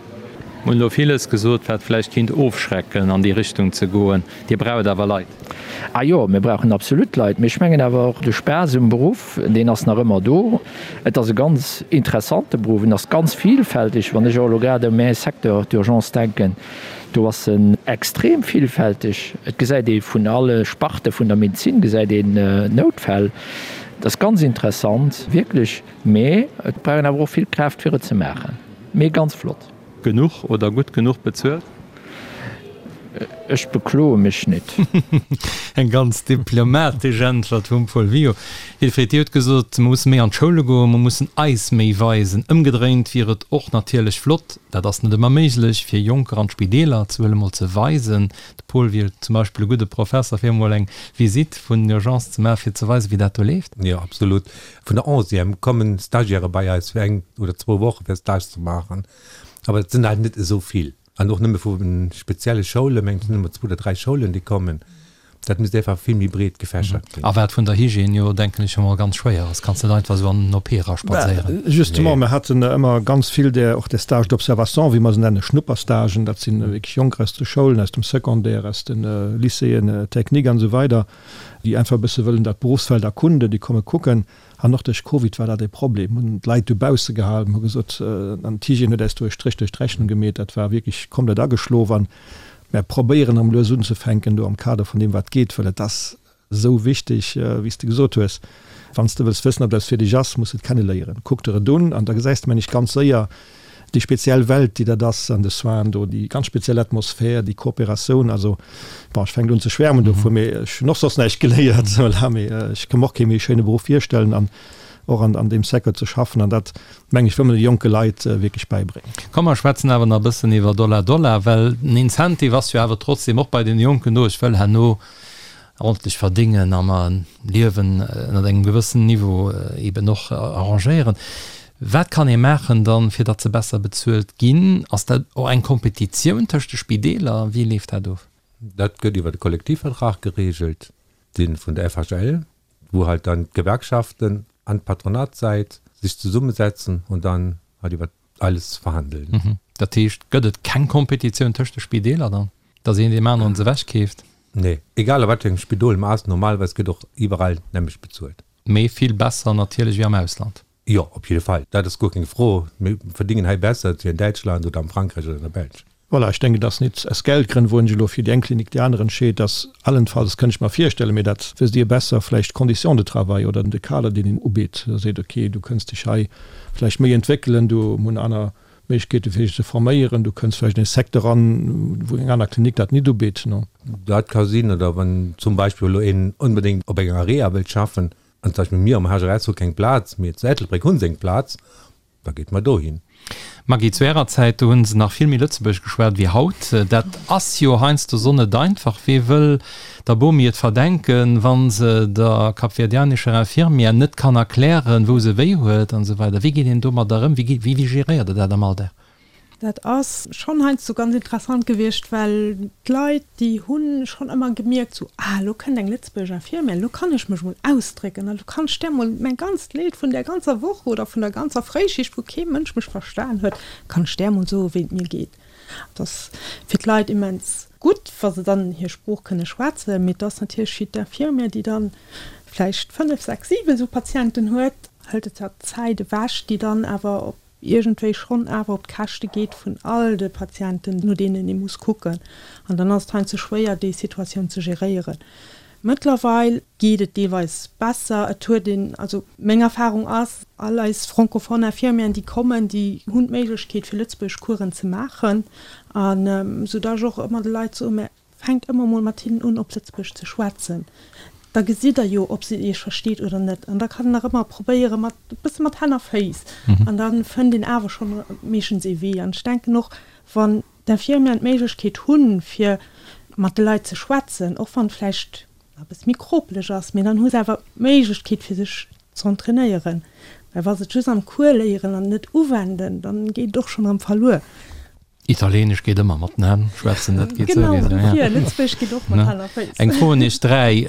Mir hunn elo villes gesot, wat vläicht kinnt ofschrecken, an déi Richtung ze goen. Dir braucht awer Leit. A jo, mir brauchen absolut Leit. Mee ech mengen awer och, de Spaass um Beruff, deen ass nach ëmmer do. Et ass e ganz interessante Beruff, en ass ganz vielfältig. Wann ech och elo grad u mäi Secteur, d'Urgence, denken, do ass en extrem vielfältig. Et gesäit ee vun alle Sparte vun der Medezin gesäit een Noutfäll. Et ass ganz interessant, wierklech. Mee et brauch een awer och vill Kraaft, fir et ze maachen. Mee ganz flott. Genuch oder gutt genuch bezuelt? Ech bekloe mech nit. Eng ganz diplomatesch Äntwert vum Paul Wio. Wilfried, Dir hutt gesot, mer musse méi an d'Schoule goen, mer mussen eis méi weisen. Ëmgedréint wier et och natierlech flott, dat ass net ëmmer méiglech, fir Jonker an d'Spideeler ze huelen, mol ze weisen. De Paul wier zum Beispill e gudde Professer, fir emol eng Visitt vun den Urgencen ze maachen, fir ze weisen, wéi dat do leeft. Jo, absolut. Vun der Onzième kommen Stagiaire bei eis fir eng oder zwou Woche fir Stage ze maachen, awer et sinn halt net esou vill an och nëmme vu spezielle Schoulen, mengen ech, sinn nëmme zwou oder dräi Schoulen déi kommen. Dat misst einfach vill méi breet gefächert ginn. A wat vun der Hygiène jo, denken ech emol, ganz schwéier ass. Kanns net einfach esou an den OP eraspadséieren. Justement, mir haten ëmmer ganz vill där, och där Stages d'observation, wéi mer se nennen, Schnupperstagen, dat sinn wierklech Jonker aus de Schoulen, aus dem Secondaire, aus de Lycéeën techniques an esou weider, déi einfach e bësse wëllen dat Beruffsfeld erkunden, déi komme kucken. An och duerch Covid war dat e Problem, hunn d'Leit dobausse gehalen, hu gesot, an d'Hygiène huet äis do e Stréch duerch d'Rechnung gemeet, dat war wierklech komplett ageschlof. An mär probéieren erëm lues unzefänken do am Kader vun deem wat geet, well et ass esou wichteg, wéi s de gesot hues, wann s de wëlls wëssen, ob dat fir dech ass, muss de et kenneléieren. Kuck der et un an da gesäis de, mengen ech, ganz séier, déi speziell Welt, déi dat ass an de Soinen do, déi ganz speziell Atmosphär, déi Kooperatioun, also bon, ech fänken un ze schwärmen dovun, mee ech hunn och soss näischt geléiert, voilà, mee ech ka mer och kee méi schéine Beruff virstellen an och an an deem Secteur ze schaffen an dat, meng ech, wëll mer de jonke Leit wierklech bäibréngen. Komm mer schwätzen awer nach e bëssen iwwer Dollar Dollar, well den Incentive ass jo awer trotzdem och bei den Jonken do, ech wëll herno. Ordentlech verdéngen a mer e Liewen ënnert engem gewëssen Niveau eben och arrangéieren. Wat kann ee maachen dann, fir datt se besser bezuelt ginn? Ass dat och eng Kompetitioun tëscht de Spideeler? Wéi leeft dat of? Dat gëtt iwwer de Kollektivvertrag geregelt, dee vun der FHL, wou halt dann d'Gewerkschaften an d'Patronatssäit sech zesummesetzen und dann halt iwwer alles verhandeln. Dat heescht, gëtt et keng Kompetitioun tëscht de Spideeler dann, datt een deem aneren se ewechkeeft? Nee, egal a wat fir engem Spidol mer ass, normalerweis gëtt och iwwerall d'nämmlecht bezuelt. Mee vill besser natierlech wéi am Ausland. Jo, op jidde Fall, dat ass guer keng Fro. Mir verdingen hei besser wéi an Däitschland oder am Frankräich oder an der Belsch. Voilà, ech denken, et ass nit aus Geldgrënn, wou een sech elo fir déi eng Klinik déi aner entscheet, dass allenfalls, kënnt ech mer virstellen, mee dat wësst Dir besser, vläicht d'Conditions de travail oder de Kader, deen een ubitt, da seet, okay, du kënns dech hei vläicht méi entwéckelen, du hunn aner Méiglechkeete fir dech ze forméieren, du kënns vläicht an ee Secteur eran, wou eng aner Klinik dat nit ubitt. Dat ka sinn, oder wann zum Beispill elo een onbedéngt op enger Area wëllt schaffen, an zum Beispill mir am HRS hu keng Plaz, mee zu Ettelbréck hu se eng Plaz, Da geet mer dohin. Maggy, zu ärer Zäit, do hunn se nach vill méi Lëtzebuergesch geschwat wéi haut. Dat ass jo heiansdo so net einfach. Wee wëll der Bomi et verdenken, wa se der kapverdianescher Infirmière net kann erklären, wou se wéi huet an esou weider. Wéi geet een domadder ëm? Wéi, wéi geréiert der dat am Alldag? Dat ass schonn heiansdo ganz interessant gewiescht, well d'Leit, déi hu schonn ëmmer gemierkt, sou, ah, elo kënnt eng Lëtzebuerger Infirmière, elo kann ech mech mol ausdrécken an elo kann ech där mol mäin ganzt Leed vun där ganzer Woch oder vun der ganzer Fréischicht, wou kee Mënsch mech verstan huet, kann ech där mol soen, wéi et mir geet. Et ass fir d'Leit immens gutt, wa se dann hir Sprooch kënne schwätzen, mee et ass natierlech fir d'Infirmière, déi dann vläicht 5, 6, 7 esou Patienten huet, hëlt et der Zäit ewech, déi dann awer op iergendwéi schonn awer op d'Käschte geet vun all de Patienten, no deenen ee muss kucken. An dann ass et heiansdo schwéier, déi Situatioun ze geréieren. Mëttlerweil geet et deelweis besser. Et huet een, also meng Erfahrung ass, all eis francophone Infirmieren, déi kommen, déi hunn d'Méiglechkeet, fir Lëtzebuergesch Coursen ze maachen. An soudass ech och ëmmer de Leit soen, mä Fänkt ëmmer mol mat hinnen un op Lëtzebuergesch ze schwätzen, da gesitt der jo ob se iech versteet oder net. An da kann een nach ëmmer probéiere mat e bësse mat Hänn a Féiss an da fënnt een awer schonn meeschtens ee Wee. An ech denken och, wann d'Infirmieren d'Méiglechkeet hunn, fir mat de Leit ze schwätzen, och wann et vläicht e bësse méi kropeleg ass, mee dann hu se awer d'Méiglechkeet fir sech ze entrainéieren. Well wa se et just am Cours léieren an et net uwenden, dann geet et och schonn erëm verluer. Italienesch geet ëmmer mat den Hänn schwätzen, dat geet souwisou. Genau, dofir, Lëtzebuergesch geet och mat Hänn a Féiss. Eng Fro un iech 3,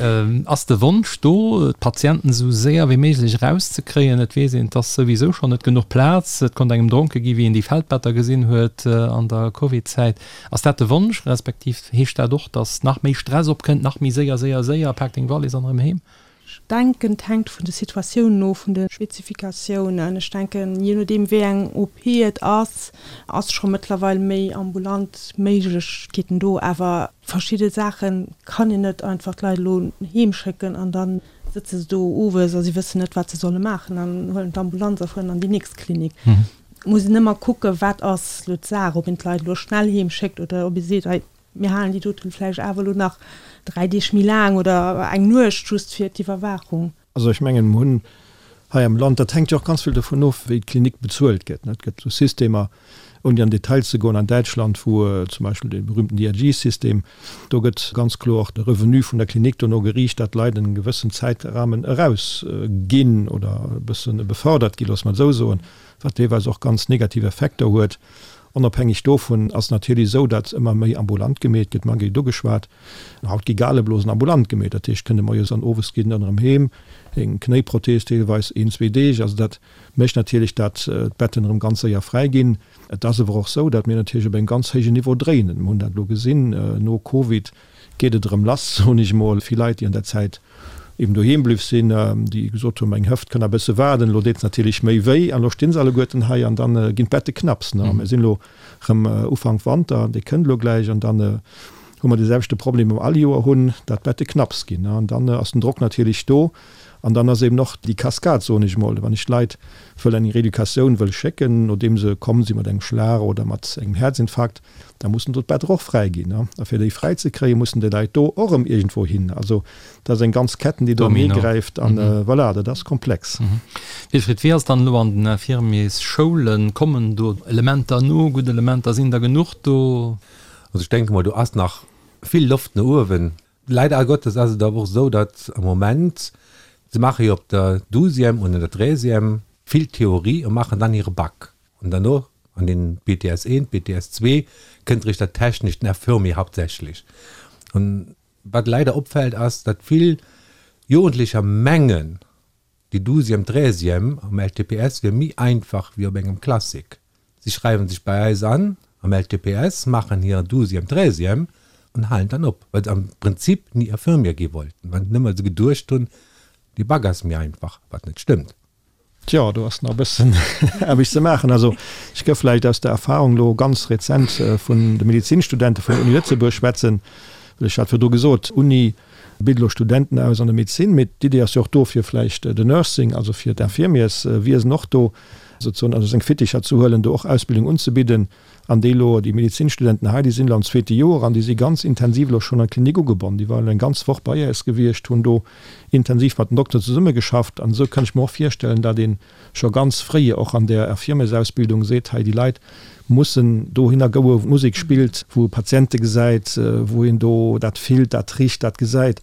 Ass de Wonsch do, d'Patienten esou séier wéi méiglech erauszekréien? Et weess een, et ass souwisou schonn net genuch Plaz. Et konnt engem dronke gi wéi een déi Feldbetter gesinn huet an der Covid-Zäit. Ass dat de Wonsch, respektiv heescht dat och, datt nach méi Stress opkënnt, nach méi séier, séier, séier, pak deng Wallis an erëm heem? Ech denken, et hänkt vun de Situatiounen of, vun de Spezifikatiounen. Ech denken, jee nodeem wéi eng OP et ass, ass scho mëttlerweil méi ambulant Méiglechkeeten do. Awer verschidde Saache kann een net einfach d'Leit elo heem schécken an da sëtze se do owes a si wëssen net, wat se solle maachen an huelen d'Ambulanz a fueren an déi nächst Klinik. Et muss een ëmmer kucken, wat ass elo d'Saach, ob een d'Leit elo schnell heem schéckt oder ob ee seet, hei, Mir halen déi doten vläicht awer elo nach 3 Deeg méi laang oder eng Nuecht just fir d'Iwwerwaachung. Also ech mengen, mer hunn hei am Land, dat hänkt jo och ganz vill dovun of, wéi d'Klinik bezuelt gëtt, et gëtt esou Systemer, ouni an Detail ze goen, an Däitschland, wou zum Beispill dee berühmten DRG-System, do gëtt ganz kloer de Revenu vun der Klinik dono geriicht, datt d'Leit en gewëssen Zäitrahmen erausginn oder e bësse befördert ginn, loosse mer et esou soen, wat deelweis och ganz negativ Effekter huet. Onofhängeg dovun ass natierlech esou, datt ëmmer méi ambulant gemeet gëtt. D'Maggy huet ugeschwat, haut gi Galeblosen ambulant gemeet. Dat heescht, kënne moies an owes ginn dann erëm heem, eng Knéiprothees deelweis een, zwee Deeg. Also dat mécht natierlech, datt d'Betten erëm ganz séier fräi ginn. Et ass awer och esou, datt mir natierlech op engem ganz héijen Niveau dréinen. Mir hunn dat elo gesinn no Covid, geet et erëm lass, soen ech emol. Vill Leit, déi an der Zäit eben doheem bliww sinn, déi gesot hunn, meng Hëft kënn a bësse waarden, elo deet se natierlech méi wéi an elo stinn se alleguerten hei an dann ginn d'Bette knapps. Ne, mir sinn elo erëm Ufank Wanter, dee kënnt elo gläich an dann hu mer dee selwechte Problem, dee mer all Joer hunn, dat d'Bette knapps ginn. An dann ass den Drock natierlech do an dann ass eben och déi Cascade, soen ech emol, wann ech d'Leit wëll an eng Reeducatioun wëll schécken, nodeem se komm si mat engem Schlag oder mat engem Häerzinfarkt, Da mussen do d'Better och fräi ginn. A fir déi fräi ze kréien, mussen déi Leit do och erëm iergendwou hin. Also dat ass eng ganz Ketten, déi do anee gräift. An voilà, dat ass komplex. Wilfried, wéi ass dann elo an den Infirmiersschoulen? Kommen do Elementer no, gutt Elementer? Sinn der genuch do? Also ech denke mol, do ass nach vill Loft no uewen. Leider Gottes ass et awer och esou, datt am Moment, se maache jo op der Douzième und an der Treizième vill Theorie a maachen dann hire Bac. An derno an den BTS 1, BTS 2 kënnt eréischt dat Technescht, den Infirmier hauptsächlich. An wat leider opfält ass, datt vill Jugendlecher mengen, déi Douzième, Treizième am LTPS wier méi einfach wéi op engem Classique. Si schreiwen sech bei eis an am LTPS, maachen hir Douzième, Treizième an halen dann op, well se am Prinzip ni Infirmier gi wollten, well nëmme se geduecht hunn, dee Bac ass méi einfach, wat net stëmmt. Tjo, do ass nach e bëssen Aarbecht ze maachen. Also ech gëff vläicht aus der Erfahrung elo ganz rezent vun de Medezinstudente vun der Uni Lëtzebuerg schwätzen, well ech hat virdru gesot, d'Uni bitt elo Studenten aus an der Medezin, mee d'Idee ass jo och do fir vläicht den Nursing, also fir d'Infirmierswiesen och do sozusagen ënner seng Fitticher ze huelen, do och Ausbildung unzebidden. An déi elo, déi Medezinstudenten hei, déi sinn elo am zweete Joer an déi si ganz intensiv elo schonn an d'Klinik ugebonnen. Déi waren elo eng ganz Woch bei äis gewiescht, hunn do intensiv mat den Dokteren zesummegeschafft. An esou kann ech mer och virstellen, datt ee scho ganz fréi och an där Infirmiersausbildung seet, hei déi Leit mussen dohinner goe wou d'Musek spillt, wou e Patiente gesäit, wou een do dat fillt, dat richt, dat gesäit.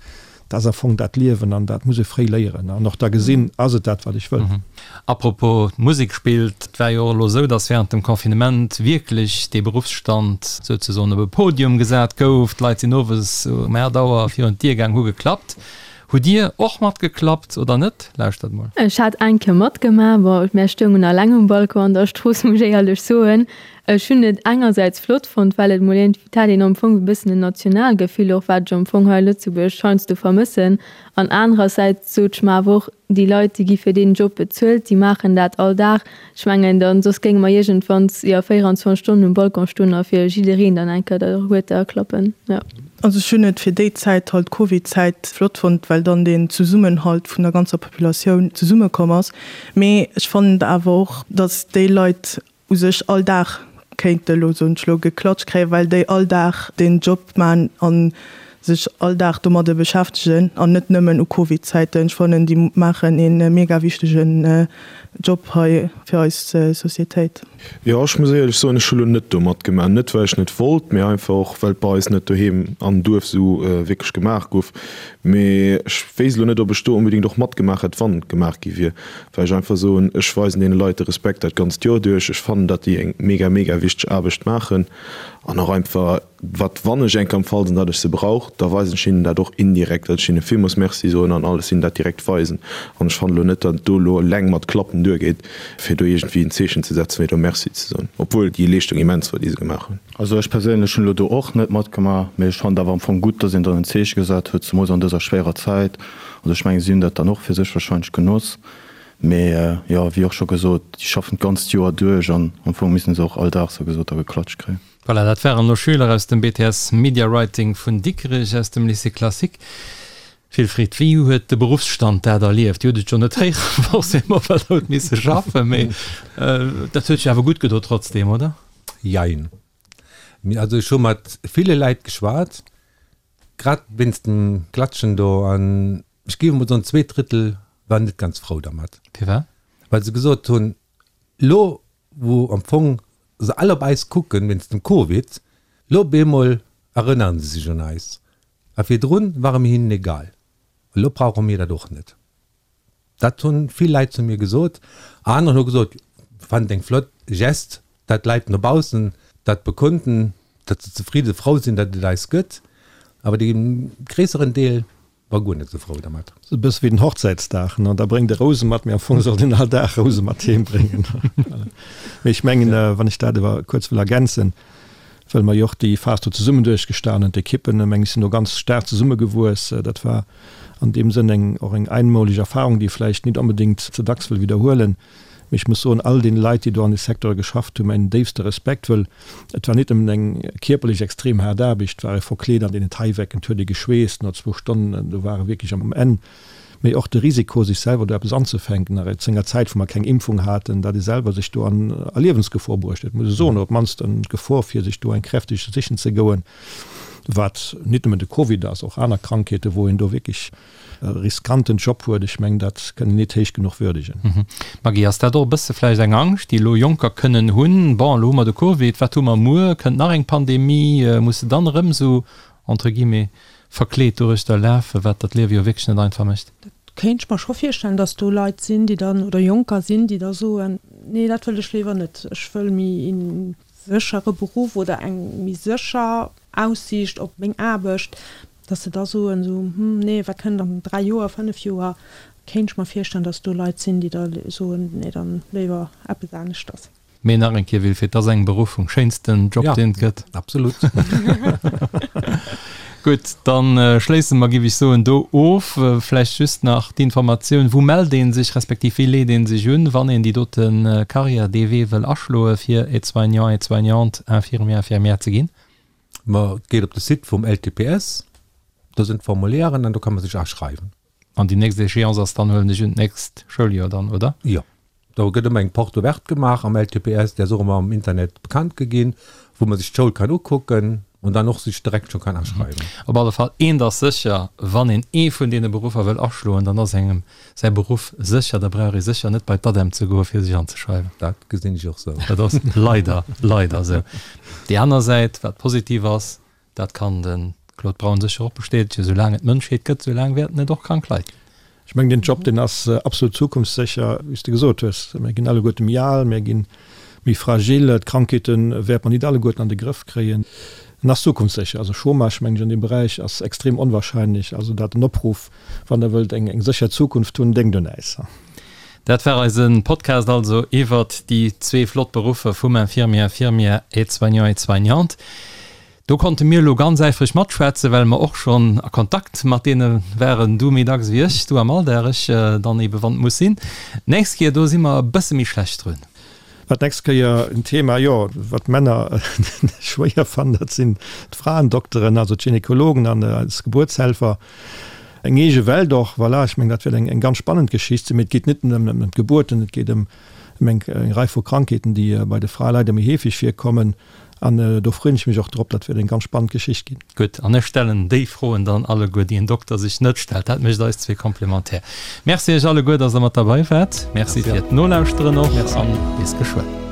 Dat ass am Fong dat Liewen an dat muss ee fréi léieren an och da gesinn, ass et dat, wat ech wëll. Apropos d'Musek spillt, et war jo och elo esou, datt während dem Confinement wierklech dee Beruffsstand souzesoen op e Podium gesat gouf. D'Leit sinn owes um 8 Auer virun d'Dier gaang, hu geklappt. Hutt Dir och matgeklappt oder net? Lauschtert mol. Ech hat eng Kéier matgemaach, bon, mär stoungen alleng um Balcon an der Strooss, muss ech éierlech soen. Ech hunn et engersäits flott fonnt, well et mol iergendwéi, et hat een am Fong e bëssen en Nationalgefill och, wat ech am Fong hei a Lëtzebuerg heiansdo vermëssen. An anerersäits sot ech mer awer och, déi Leit, déi gi fir deen Job bezuelt, déi maachen dat all Dag. Ech mengen, dann, soss géinge mer iergendwanns, jo, 24 Stonnen um Balcon stoen a fir jiddereen dann eng Kéier der Huerter klappen, jo. Also ech hunn et fir déi Zäit halt, d'Covid-Zäit, flott fonnt, well dann deen Zesummenhalt vun der ganzer Populatioun zesummekomm ass. Mee ech fannen et awer och, datt déi Leit u sech all Dag kéinte elo, soen ech elo, geklatscht kréien, well déi all Dag deen Job man a sech all Dag domadde beschäftegen an net nëmmen u Covid-Zäiten. Ech fannen, déi maachen ee mega wichtegen Job hei fir eis Societéit. Jo, ech muss éierlech soen, ech hu lo net do matgemaach. Net well ech net wollt, mee einfach och well et bei eis net doheem am Duerf esou wierklech gemaach gouf. Mee ech wéisst elo net, ob ech do onbedéngt och matgemaach hätt, wann et gemaach gi wier. Well ech einfach soen, ech weisen deene Leit de Respekt dat ganzt Joer duerch. Ech fannen, datt déi eng mega, mega wichteg Aarbecht maachen an och einfach, wat wann ech eng Kéier am Fall sinn, datt ech se brauch, da weisen ech hinnen dat och indirekt, datt ech hinne villmools Merci soen an alles hinnen dat direkt weisen. An ech fannen elo net, datt et do elo eleng mat Klappen duergeet, fir do iergendwéi en Zeechen ze setzen, fir do Merci ze soen, obwuel déi Leeschtung immens war, déi se gemaach hunn. Also ech perséinlech hunn elo do och net matgemaach, mee ech fannen et awer am Fong gutt, datt een dann en Zeeche gesat huet, zemools an dëser schwéierer Zäit. Also ech mengen, si hunn dat dann och fir sech wahrscheinlech genoss. Mee jo, wéi och scho gesot, déi schaffen d'ganzt Joer duerch an am Fong missten se och all Dag, sou gesot, da geklatscht kréien. Voilà, dat waren elo Schüler aus dem BTS Media Writing vun Dikrech, aus dem Lycée Classique. Wilfried, wéi huet de Beruffsstand dat erlieft? Dir hutt et jo net héieren, forcément, well Der hutt misse schaffen, mee dat huet sech awer gutt gedo trotzdem, oder? Jein. Also ech hu mat ville Leit geschwat, Grad wéinst dem Klatschen do, an ech géif emol soen, zweedrëttel waren net ganz frou dermat. Firwat? Well se gesot hunn, elo wou am Fong se all op eis kucken wéinst dem Covid, elo op eemol erënnere se sech un eis. A virdrun ware mir hinnen egal. Elo brauche mir dat och net. Dat hunn vill Leit zu mir gesot. Aner hu gesot, fannen et eng flott Geste, dat d'Leit no baussen dat bekunden, datt se zefridde frou sinn, datt et eis gëtt. Awer dee gréisseren Deel war guer net esou frou dermat. Sou e bësse wéi den Hochzäitsdag, ne? Da bréngt e Rouse mat, mee am Fong sollt een all Dag Rouse mat heem bréngen. Mee ech mengen, wann ech dat awer kuerz wëll ergänzen, well mer jo och déi Phas do zesummen duerchgestanen hunn, d'Ekippen, meng ech, sinn do ganz staark zesummegewuess. Dat war an deem Sënn eng och eng einmoleg Erfahrung, déi ee vläicht nit onbedéngt ze dacks wëll widderhuelen. Mee ech muss soen, all deene Leit, déi do an de Secteure geschafft hunn, mäin déifste Respekt, wëll et war nit nëmmen eng kierperlech extrem haart Aarbecht, et war ee verkleet an deenen Taiwecken, et huet ee geschweesst no zwou Stonnen, do war e wierklech am Enn. Mee och de Risiko, sech selwer do eppes anzefänken, nach zu enger Zäit, wou mer keng Impfung haten, datt ee selwer sech do an a Liewensgefor bruecht huet, muss ech soen, oder op d'mannst an d'Gefor, fir sech do eng kräfteg sichen ze goen, wat nit nëmmen de Covid ass, och aner Krankheeten, wou een do wierklech e riskanten Job huet. Ech mengen, dat kënn een nit héich genuch würdegen. Maggy, ass dat och e bësse vläicht eng Angscht, déi elo Jonker kënnen hunn, Bon, elo hu mer de Covid, wat hu mer muer? Kënnt nach eng Pandemie? Muss se dann erëm esou, entre guillemets, verkleet doruechter lafen, wat der d'Liewe jo wierklech net einfach mécht. Dat kéint ech mer scho virstellen, dass do Leit sinn, déi dann, oder Jonker sinn, déi da soen, nee dat wëll ech léiwer net, ech wëll méi ee séchere Beruff oder eng méi sécher Aussiicht op meng Aarbecht, dass se da soen esou, hm nee, wat kënnt an 3 Joer, 5 Joer, kéint ech mer virstellen, dass do Leit sinn, déi da soen, nee dann léiwer eppes aneschters. Mee nach eng Kéier, Wilfried, dat ass eng Beruffung, schéinsten Job, deen et gëtt. Absolut. Gutt, da schléisse mer, géif ech soen, do of. Vläicht just nach d'Informatioun, Wou mellt ee sech, respektiv wéi leet ee sech un, wann een déi dote Karriär, dee Wee wëll aschloe fir Aide-soignant, Aide-soignante, Infirmier, Infirmière ze ginn? Ma et geet op de Site vum LTPS, do sinn d'Formulieren an do ka man sech aschreiwen. An déi nächst Échéance ass dann, huelen ech un, d'nächst Schouljoer dann, oder? Jo. Do gëtt ëmmer eng Porte ouverte gemaach am LTPS, déi ass och ëmmer am Internet bekannt ge ginn, wou man sech d'Schoul kann ukucken an dann och sech direkt scho kann aschreiwen. Op alle Fall, eent ass sécher, Wann een ee vun deene Beruffer wëll aschloen, dann ass engem säi Beruff sécher. Da brauch ee sécher net bei d'ADEM ze goen, fir sech anzeschreiwen. Dat gesinn ech och sou. Dat ass leider, leider sou. Déi aner Säit, wat positiv ass, Dat kann de Claude Braun sécher och bestätegen, Esou laang et d'Mënschheet gëtt, esou laang wäerten et och krank Leit ginn. Ech mengen, deen Job, deen ass absolut zukunftssécher, wéi s de gesot hues. Mir ginn alleguerte méi al, mir gi méi fragil, d'Krankheete wäerte mer nit alleguerten an de Grëff kréien. En ass zukunftssécher. Also Chômage, mengen ech, an deem Beräich ass extrem onwahrscheinlech. Also dat en Opruff, wann Der wëllt eng sécher Zukunft hunn, denkt un äis. Dat war eise Podcast also iwwert déi zwee flott Beruffer vum Infirmier, Infirmière, Aide-soignant, Aide-soignante. Do konnte mir elo ganz äifreg matschwätzen, well mer och schonn a Kontakt mat deene waren, du méi dacks wéi ech, du am Alldag, ech dann ebe wann et muss sinn. D'nächst Kéier, do si mer e bësse méi schlecht drun. Wat d'nächst Kéier en Thema, jo, wat d'Männer schwéier fannen, dat sinn d'Fraendokteren, also d'Gynekologen an eis Gebuertshelfer. Eng eege Welt och, voilà. Ech mengen, dat wäert eng ganz spannend Geschicht sinn. Mee et geet net nëmmen ëm d'Gebuerten, et geet ëm eng Rei vu Krankheeten, déi bei de Frae leider méi heefeg virkommen. An do freeën ech mech och drop. Dat wäert eng ganz spannend Geschicht ginn. Gutt, an ech stellen déi Froen dann alleguer, déi en Dokter sech net stellt. Dat mécht eis zwee komplementär. Merci iech alleguer, dass der mat derbei waart. Merci fir d'Nolauschteren och an bis geschwënn.